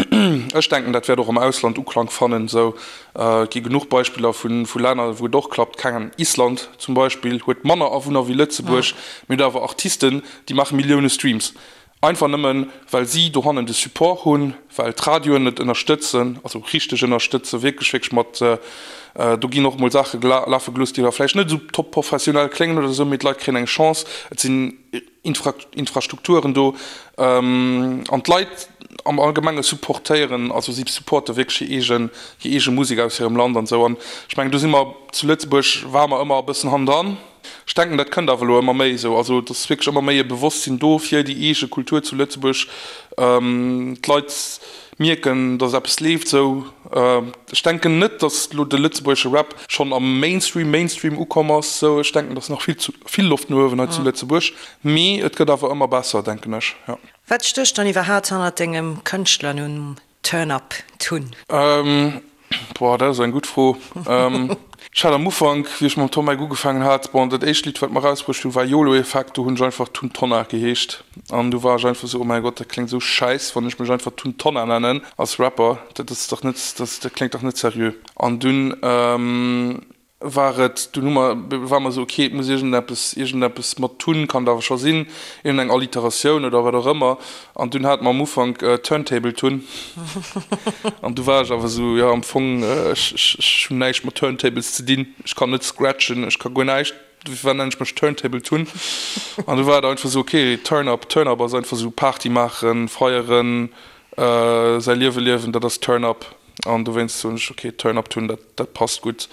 ech denken, dat wäert och am Ausland Uklank fannen esou. Et gi genuch Beispiller vu Länner, wou et och klappt, keng Ahnung, Island zum Beispill huet manner Awunner wéi Lëtzebuerg, mee huet awer Artisten, déi maache Millioune Streams. Einfach nëmmen, well si dohannen de Support hunn, well d'Radioen et ënnerstëtzen, also richteg ënnerstëtzen, wierklech, wierklech mat, do ginn och mol Saache lafe gelooss, déi da vläicht net esou top professionell kléngen oder esou, mee d'Leit kréien eng Chance, et sinn Infrastrukturen do an d'Leit am Allgemenge supportéieren, also si supporte wierklech hir eegen, hir eege Musek aus hirem Land an esou. An ech mengen, do si mer zu Lëtzebuerg, ware mer ëmmer e bëssen hannendran. Ech denken, dat kënnt awer elo ëmmer méi esou. Also et ass wierklech ëmmer méi e Bewosstsinn do fir déi eege Kultur zu Lëtzebuerg. D'Leit mierken, datt eppes leeft esou. Ech denken net, datt elo de lëtzebuergesche Rap schonn am Mainstream Mainstream ukomm ass esou. Ech denken, et ass nach vill zu vill Loft no uewen hei zu Lëtzebuerg. Mee et gëtt awer ëmmer besser, denken ech, jo. Wat stécht dann iwwerhaapt hannert dengem Kënschtlernumm Turn Up Tun? Boah, dat ass eng gutt Fro. Ech hat am Ufank, wéi ech mam Tom Eck ugefaangen hat, bon, dat éischt Lidd, wat mer erausbruecht hunn, war Yolo Effect. Do hunn ech einfach Tun Tonnar geheescht. An du war ech einfach esou, oh mäi Gott, dat kléngt esou schäiss, wann ech mech einfach Tun Tonnar nennen als Rapper. Dat ass dach net, dat kléngt dach net seriö. An dunn war et, dunn hu mer, ware mer esou, ok, et muss iergendeppes, iergendeppes mat Tun kann et awer scho sinn, iergendeng Alliteratioun oder wat och ëmmer. An dunn hate mer am Ufank Turntable Tun. An du war ech awer esou, jo, am Fong, ech, ech, ech hunn näischt mat Turntables ze dinn, ech kann net scratchen, ech ka guer näischt, firwat nennen ech mech Turntable Tun? An du war et einfach esou, ok, Turn Up, Turn Up ass einfach esou Party maachen, feieren, säi Liewe liewen, dat ass Turn Up. An dowéinst soen ech, ok, Turn Up Tun, dat, dat passt gutt.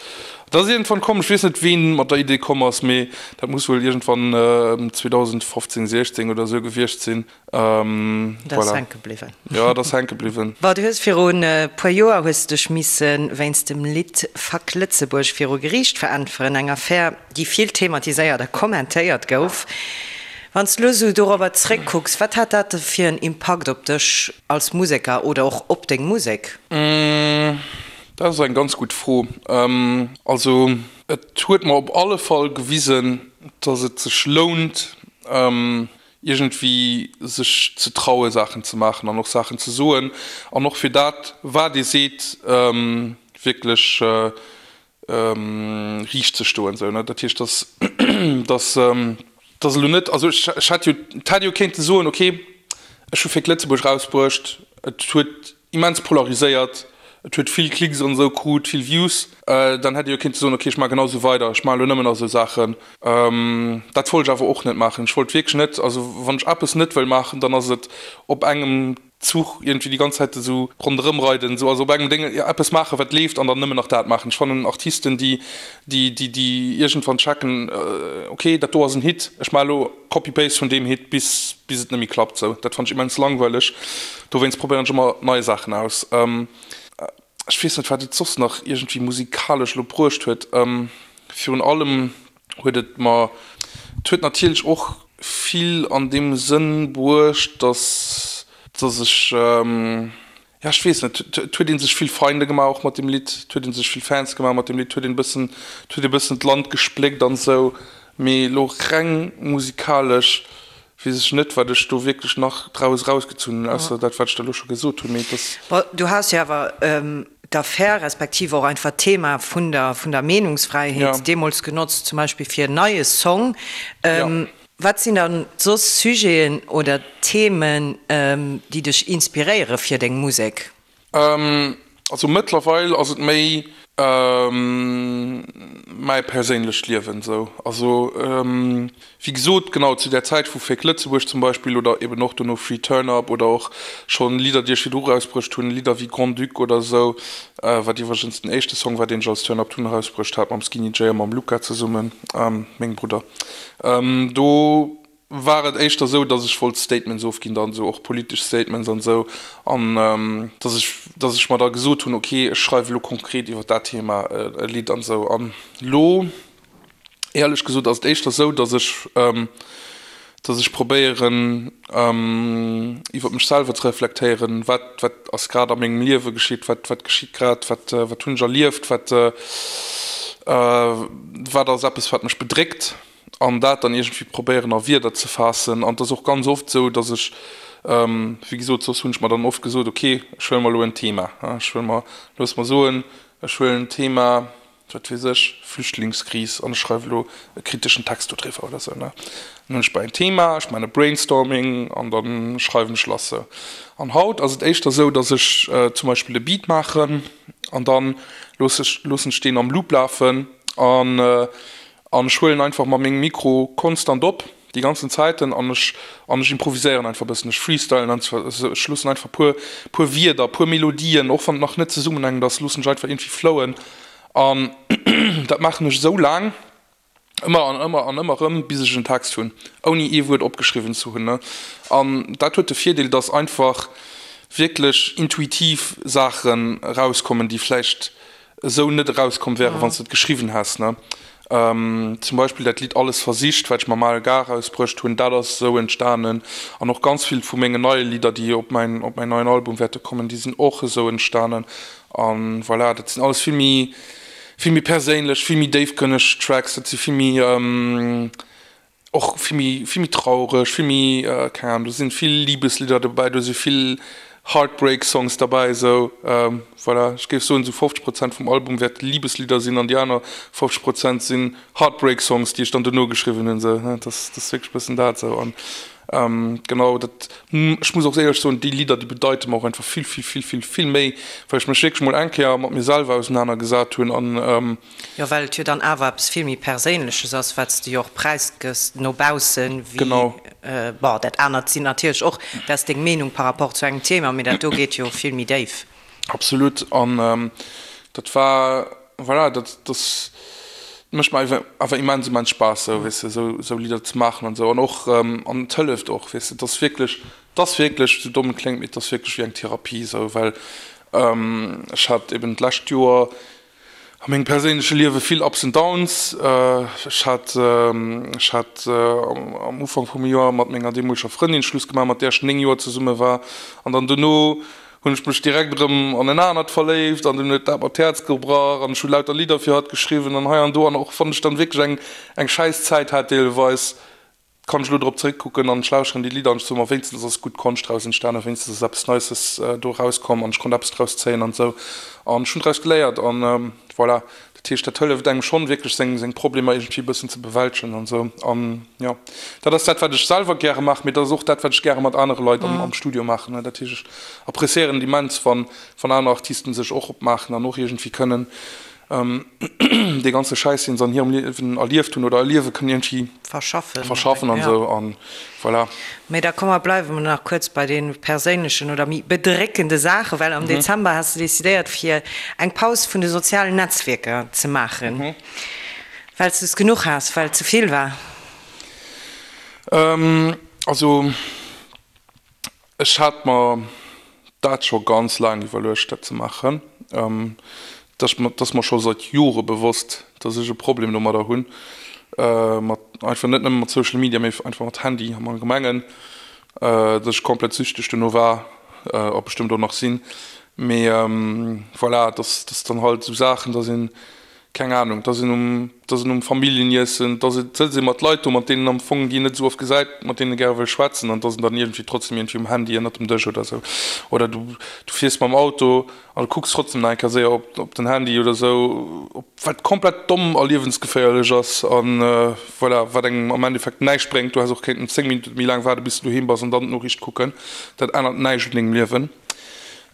Dat ass iergendwann komm, ech weess net, ween mat der Idee komm ass, mee dat muss wuel iergendwann 2015, 16 oder esou gewiescht sinn. Dat ass hänke bliwwen. Jo, dat ass hänke bliwwen. Bon, du hues virun e puer Joer hues de dech misse wéinst dem Lidd Fuck Lëtzebuerg viru Geriicht veräntweren, eng Affär, déi vill thematiséiert a kommentéiert gouf. Wann s de elo esou dorobber zréckkucks, wat hat dat fir en Impakt op dech als Museker oder och op deng Musek? Dat ass eng ganz gutt Fro. Also et huet mer op alle Fall gewisen, datt et sech lount, iergendwéi sech ze traue Saachen ze maachen an och Saachen ze soen an och fir dat wat ee seet wierklech riicht ze stoen esou ne. Dat heescht dass dass dass elo net, also ech ech hätt jo et hätt ee jo kéinte soen, okay ech hu Fake Lëtzebuerg rausbruecht, et huet immens polariséiert, et huet vill Klicks an esou krut, vill Views, dann hätt ee jo kéinte soen, okay ech maache genau esou weider, ech maache elo nëmmen nach esou Saachen. Dat wollt ech awer och net maachen. Ech wollt wierklech net, also wann ech eppes net wëll maachen, dann ass et op engem Zuch iergendwéi déi ganz Zäit esou ronderëm reiden, esou, also op engem Déng eppes maachen, wat leeft, an dann nëmmen nach dat maachen. Ech fannen Artisten, déi, déi, déi, déi iergendwann checken, ok, dat do ass en Hit, ech maache elo Copy-Paste vun deem Hit, bis, bis et net méi klappt, esou, dat fannen ech immens langweileg. Dowéinst probéieren ech ëmmer nei Saachen aus. Ech weess net, wat et soss nach iergendwéi musikalesch elo bruecht huet. Virun allem huet et mer, et huet natierlech och vill an deem Sënn bruecht, dass, dass ech, ja ech weess net, et huet ee sech vill Feinde gemaach och mat deem Lidd, et huet ee sech vill Fans gemaach mat deem Lidd, et huet een e bëssen, et huet ee bëssen d'Land gespléckt an esou, mee elo reng musikalesch weess ech net, wat ech do wierklech nach draus erausgezunn hunn, ausser dat, wat ech der elo scho gesot hunn, mee et ass. Bon, du has jo awer d'Affär respektiv och einfach d'Thema vun der, vun der Meenungsfräiheet deemools genotzt, zum Beispill fir en neie Song. Wat sinn dann soss Sujeten oder Themen, déi dech inspiréiere fir deng Musek? Also mëttlerweil ass et méi mäi perséinlecht Liewen esou. Also wéi gesot, genau zu där Zäit vu Fake Lëtzebuerg zum Beispill oder eben och dono Free Turn Up oder och schonn Lidder déi ech virdru rausbruecht hunn, Lidder wéi Grand Duc oder esou, wat iwwregens den éischte Song war deen ech als Turn Up Tun erausbruecht hat mam Skinny Jay a mam Luca zesummen, mengem Brudder. Do. war et éischter esou, dass ech wollt Statements ofginn, dann esou och politesch Statements an esou, an dass ech, dass ech mer da gesot hunn, ok, ech schreiwe lo konkret iwwer dat Thema e Lidd an esou. An lo, éierlech gesot, ass et éischter esou, dass ech, dass ech probéieren, iwwer mech selwer ze reflektéieren, wat, wat ass grad a mengem Liewe geschitt, wat, wat geschitt grad, wat, wat hunn ech erlieft, wat, wat ass eppes, wat mech bedréckt. An dat dann iergendwéi probéieren a Wierder ze faassen. An et ass och ganz oft esou, datt ech, wéi gesot, soss hunn ech mer dann oft gesot, ok, ech huele mer elo en Thema, ech huele mer, looss mer soen, ech huelen d'Thema, wat weess ech, Flüchtlingskris an ech schreiwe elo e kriteschen Text dodriwwer oder esou, ne. Dann hunn ech bei en Thema, ech maachen e Brainstorming an da schreiwen ech lass esou. An haut ass et éischter esou, datt ech zum Beispill e Beat maachen an da looss ech, loossen ech deen am Loop lafen an An ech huelen einfach mat mengem Mikro konstant op, déi ganzen Zäiten, an ech, an ech improviséieren einfach e bëssen, ech freestylen einfach, ech loossen einfach puer, puer Wierder, puer Melodien, och wann et nach net zesummenhängend ass, loossen ech einfach iergendwéi flowen. An dat maachen ech esou laang, ëmmer an ëmmer an ëmmer erëm, bis ech en Text hunn, ouni ee Wuert opgeschriwwen ze hunn. An dat huet de Virdeel, dass einfach wierklech intuitiv Saachen erauskommen, déi vläicht esou net erauskomm wären, wann s de et geschriwwen häss, ne? Zum Beispill dat Lidd Alles versicht, wat ech mam ALK erausbruecht hunn, dat ass esou entstanen. An och ganz vill vu mengen neie Lidder, déi op mäin, op mäin neien Album wäerte kommen, déi sinn och esou entstanen. A voilà, dat sinn alles vill méi, vill méi perséinlech, vill méi déifgrënneg Tracks, dat si vill méi, Och vill méi, vill méi traureg, vill méi, keng Ahnung, do sinn vill Libeslidder dobäi, do si vill Heartbreak Songs derbäi, esou voilà. Ech géif soen, esou 50 Prozent vum Album wäerte Liebeslidder sinn an déi aner 50 Prozent sinn Heartbreak Songs, déi ech dann dono geschriwwen hunn, esou. Dat ass, dat ass wierklech e bëssen dat esou. An genau, dat, ech muss och éierlech soen, déi Lidder, déi bedeite mer och einfach vill, vill, vill, vill, vill méi, well ech mech wierklech mol eng Kéier mat mir selwer ausenanergesat hunn an, Jo, well et jo dann awer eppes vill méi Perséinleches ass, wat s de jo och präisgëss no baussen, wéi, bon, dat anert sinn natierlech och, dat ass deng Meenung par rapport zu engem Thema, mee dat do geet jo vill méi déif. Absolut. An dat war, voilà, dat, dat mécht mer awer immens, immens Spaass, esou, weess de, esou, esou Lidder ze maachen an esou. An och, an et hëlleft och, weess de, et ass wierklech, et ass wierklech, esou domm et kléngt, mee et ass wierklech wéi eng Therapie esou, well ech hat eben d'lescht Joer, A mengem perséinleche Liewe vill Ups and Downs. Ech hat ech hat am Ufank vum Joer mat menger deemoleger Frëndin Schluss gemaach, mat där ech 9 Joer zesumme war. An dann dono hunn ech mech direkt erëm an en anert verléift an dunn huet dat mer d'Häerz gebrach an ech hu lauter Lidder fir hatt geschriwwen an hei an do. An och wann ech dann wierklech eng eng schäiss Zäit hat deelweis, Kann ech elo drop zeréckkucken an ech lauschteren déi Lidder an ech soe mer, wéinstens ass gutt Konscht draus entstanen, wéinstens ass eppes Neisses do erauskomm an ech konnt eppes draus zéien an esou an ech hunn draus geléiert an voilà. Dat heescht, dat hëlleft engem schonn wierklech seng seng Problemer iergendwéi e bëssen ze bewältegen an esou an jo, dat ass dat wat ech selwer gäre maachen, mee dat ass och dat wat ech gäre mat anere Leit am am Studio maachen. Dat heescht, ech appreciéieren et immens wann wann aner Artisten sech och opmaachen an och iergendwéi kënnen dee ganze Schäiss, deen se an hirem Liewen erlieft hunn oder erliewe kënnen, iergendwéi verschaffen, verschaffen an esou an voilà. Mee da komm mer bleiwe mer nach kuerz bei de perséinlechen oder méi bedréckende Saachen, well am Dezember has de decidéiert fir eng Paus vun de sozialen Netzwierker ze maachen, well s de es genuch has, well et ze vill war. Also Ech hat mer dat scho ganz laang iwwerluecht, dat ze maachen. Et ass mer scho seit Jore bewosst, dass ech e Problem domadder hunn, mat einfach net nëmme mat Social Media, mee einfach mat Handy am Allgemengen, dass ech komplett süchteg dono war a bestëmmt och nach sinn. Mee voilà, dass dann halt esou Saachen, dass een keng Ahnung, dass een um, dass een um Familljeniessen, dass et sëtzt ee mat Leit do, mat deenen am Fong, déi een net esou oft gesäit, mat deenen ee gäre wëll schwätzen an dass en dann iergendwéi trotzdem iergendwéi um Handy ënnert dem Dësch oder esou. Oder du, du fiers mam Auto an du kucks trotzdem nach eng Kéier séier op, op den Handy oder esou, op, wat komplett domm a liewensgeféierlech ass an voilà, wat engem am Endeffekt näischt bréngt. Du häss och kéinten 10 Minutte méi laang waarde bis du doheem bass an dann d'Noriicht kucken. Dat ännert näischt un dengem Liewen.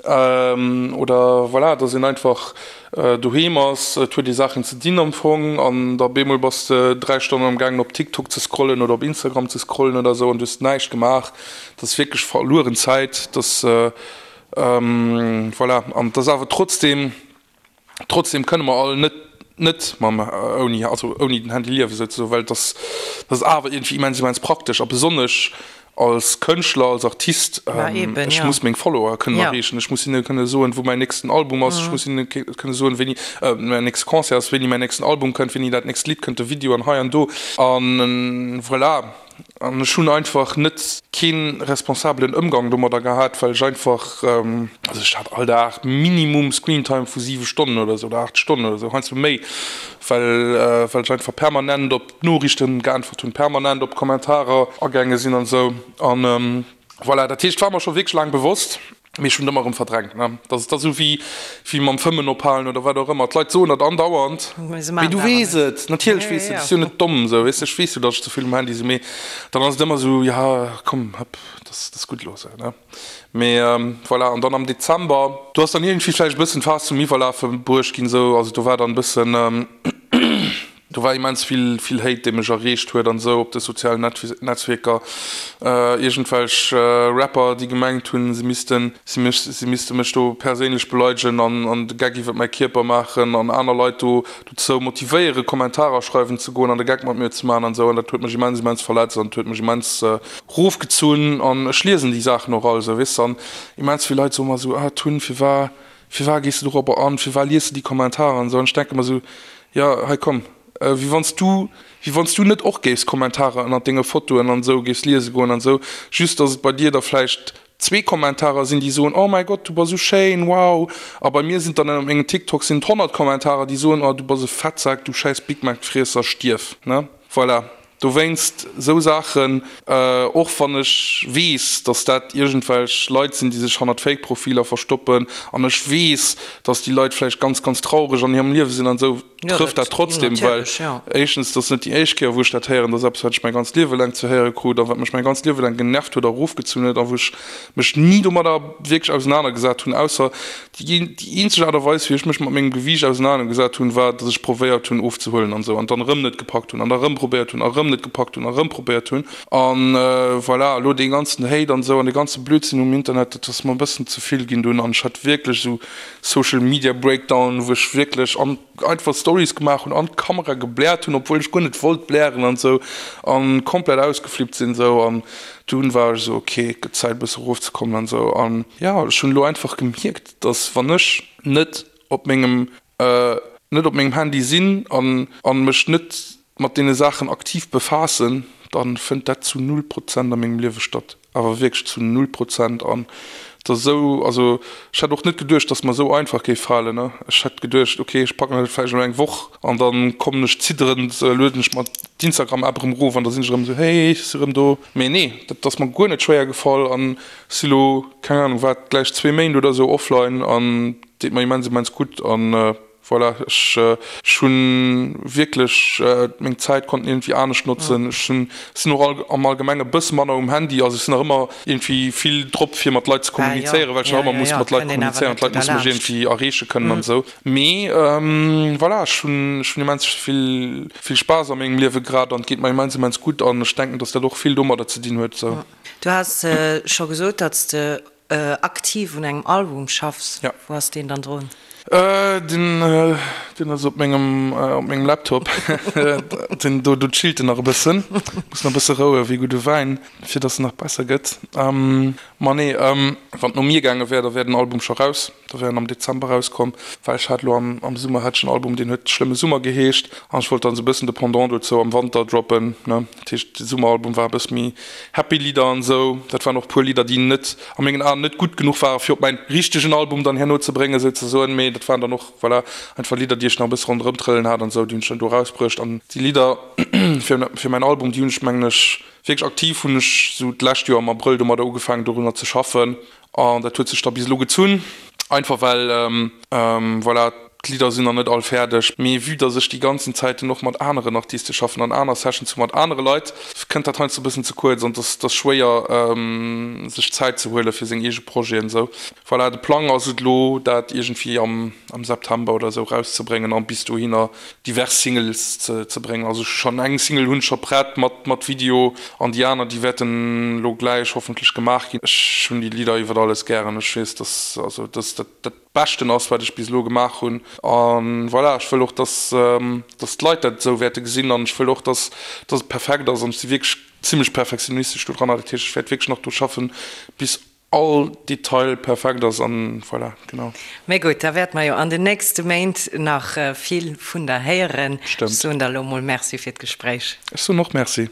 Oder voilà, dass een einfach doheem ass, et huet ee Saachen ze dinn am Fong an da bemol bass de 3 Stonnen am gaangen op TikTok ze scrollen oder op Instagram ze scrollen oder esou an du hues näischt gemaach. Dat ass wierklech verlueren Zäit. Dat voilà, an et ass awer trotzdem, trotzdem kënne mer all net. net mam ouni, also ouni den Handy liewen souzesoen, well et ass, dat ass awer iergendwéi immens, immens praktesch a besonnesch als Kënschtler, als Artist, ech muss meng Follower kënnen erreechen, ech muss hinne kënne soen, wou mäin nächsten Album ass, ech muss hinne kënne soen, wéini mäin nächste Concert ass, wéini mäin nächsten Album kënnt, wéini dat nächst Lidd kënnt, de Video an hei an do a voilà. An ech hunn einfach net kee responsabelen Ëmgang domadder gehat, well ech einfach, also ech hat all Dag minimum Screentime vu 7 Stonnen oder esou oder 8 Stonnen oder esou, heiansdo méi, well well ech einfach permanent op Noriichten geäntwert hunn, permanent op Kommentarer agaange sinn an esou. An voilà, dat heescht, war mer scho wierklech laang bewosst. Mee ech hunn et ëmmer erëm verdrängt, ne. Dat ass da sou wéi, wéi mam Fëmmen ophalen oder wat och ëmmer. D'Leit soen dat andauernd, mee du weess et, natierlech weess de et, du bass jo net domm, sou, weess de. Ech weess jo, datt ech ze vill um Handy sinn, mee dann ass et ëmmer sou, jo, komm, hëpp, dat ass, dat ass gutt elo, sou, ne. Mee voilà, an dann am Dezember, do ass dann iergendwéi vläicht e bëssen d'Faass zum Iwwerlafe bruecht ginn, sou, also do war dann e bëssen, Do war immens vill, vill Hate, dee mech erreecht huet an esou op de sozialen Netzwierker. Iergendwelch Rapper, déi gemengt hunn, se missten, si mech, si misste mech do perséinlech beleidegen an, an de Geck iwwer mäi Kierper maachen an aner Leit do dozou motivéieren, Kommentarer schreiwen ze goen an de Geck mat mir ze maachen an esou. An dat huet mech immens, immens verletzt an huet mech immens rofgezunn. An ech liesen déi Saachen och all esou, weess de. An immens vill Leit soe mer esou, ah Tun, firwar, Firwar gees de dorobber an? Firwar lies de déi Kommentarer an esou? An ech denke mer esou, jo, hei komm, wéi wann s du, wéi wann s du net och géifs Kommentarer ënnert denge Fotoen an esou géifs liese goen an esou, just dass et bei dir da vläicht zwee Kommentarer sinn, déi soen, oh mäi Gott, du bass esou schéin, wow, a bei mir sinn et dann ënnert mengem TikTok sinn et 100 Kommentarer, déi soen, oh du bass e Fettsak, du schäiss Big Mac-Friesser, stierf, ne? Voilà. Dowéinst esou Saachen, och wann ech weess, dass dat iergendwelch Leit sinn, déi sech hannert Fake-Profiler verstoppen, an ech weess, dass déi Leit vläicht ganz, ganz traureg an hirem Liewe sinn an esou, trëfft dat trotzdem, well éischtens, dat ass net déi éischt Kéier, wou ech dat héieren, dat ass eppes, wat ech mäi ganzt Liewe laang ze héiere krut a wat mech mäi ganzt Liewe laang genervt huet a erofgezunn huet a wou ech mech ni domadder wierklech ausenanergesat hunn, ausser Déi eenzeg Aart a Weis, wéi ech mech mat mengem Gewiicht ausenanergesat hunn, war, datt ech probéiert hunn, ofzehuelen an esou, an dann erëm net gepackt hunn, an da erëm probéiert hunn, a erëm net gepackt hunn, a erëm probéiert hunn. An voilà, elo dee ganzen Hate an esou an dee ganze Blödsinn um Internet, dat ass mer e bëssen ze vill ginn dunn. An ech hat wierklech esou Social Media Breakdown, wou ech wierklech an einfach Stories gemaach hunn, an d'Kamera gebläert hunn, obwuel ech guer net wollt blären an esou, an komplett ausgeflippt sinn esou. An Dunn war ech esou, ok, et gëtt Zäit e bësse erofzekommen an esou. An jo, ech hunn elo einfach gemierkt, dass wann ech net op mengem, net op mengem Handy sinn an an mech net mat deene Saachen aktiv befaassen, dann fënnt dat zu null Prozent a mengem Liewe statt. Awer wierklech zu null Prozent. An et ass esou, also ech hätt och net geduecht, dass mer esou einfach géif falen, ne. Ech hätt geduecht, ok, ech packen dat vläicht elo eng Woch An dann kommen ech zidderend, lueden ech mer d'Instagram App erëm erof an da sinn ech erëm esou, hey, ech si erëm do. Mee nee, dat ass mer guer net schwéier gefall an si lo, keng Ahnung wat, gläich zwee Méint oder esou offline an deet mer immens immens gutt an voilà, ech ech hunn wierklech meng Zäit konnten iergendwéi anescht notzen. Ech hunn, sinn och all am Allgemenge bësse manner um Handy, also ech sinn nach ëmmer iergendwéi vill drop fir mat Leit ze kommunizéieren, well ech nach ëmmer muss mat Leit kommunizéieren, d'Leit musse mech iergendwéi erreeche kënnen an esou. Mee voilà, ech hunn ech hunn immens vill vill Spaass a mengem Liewe grad an et geet mer immens immens gutt an ech denken, dass dat och vill domadder ze dinn huet sou. Du has scho gesot, datt s de aktiv un engem Album schaffs. Wou ass deen dann drun? Deen deen ass op mengem op mengem Laptop. Deen do do chillt en nach e bëssen, muss nach e bësse roue wéi gudde Wäin, fir datt en nach besser gëtt. Ma nee, wann et no mir gaange wär, da wär den Album scho raus. Da wär en am Dezember rauskomm, well ech hat elo am am Summer hat ech en Album, deen huet Schlëmme Summer geheescht an ech wollt dann esou e bëssen de Pendant dozou am Wanter droppen, ne. Dat heescht, de Summeralbum war e bësse méi happy Lidder an esou. Dat waren och e puer Lidder, déi net, a mengen Aen, net gutt genuch waren, fir op mäin richtegen Album dann herno ze bréngen, souzesoen. Mee dat waren dann och, voilà, einfach Lidder, déi ech nach e bësse ronderëm trëllen hat an esou, déi hunn ech dann do erausbruecht. An déi Lidder fir fir mäin Album, déi hunn ech, mengen ech, Wierklech aktiv hunn ech sou d'lescht Joer am Abrëll domadder ugefaangen dorunner ze schaffen an dat huet sech da bis elo gezunn, einfach well voilà, d'Lidder sinn nach net all fäerdeg. Mee vue dass ech déi ganzen Zäiten och mat aneren Artiste schaffen an aner Sessions hu mat anere Leit, kënnt dat heiansdo e bëssen ze kuerz an et ass schwéier sech Zäit ze huele fir seng eege Projeten esou. Voilà, de Plang ass et elo dat iergendwéi am September oder esou erauszebréngen an bis dohinner divers Singles ze bréngen. Also schonn eng Single hunn ech scho prett mat mat Video an déi aner déi wäerten elo gläich hoffentlech gemaach ginn. Ech hunn déi Lidder iwwer alles gären. Ech weess dass also dass dat dat. Beschten ass, wat ech bis elo gemaach hunn. A voilà, ech wëll och, dass, dass d'Leit dat esou wäerte gesinn an ech wëll och, dass, dass et perfekt ass an ech si wierklech zimlech perfektionistesch do dran. Dat heescht, ech wäert wierklech nach do schaffen, bis all Detail perfekt ass an voilà, genau. Mee gutt, da wäerte mer jo an den nächste Méint nach vill vun der héieren. Ech Stëmmt. soen der elo mol Merci fir d'Gespréich. Ech soen och Merci.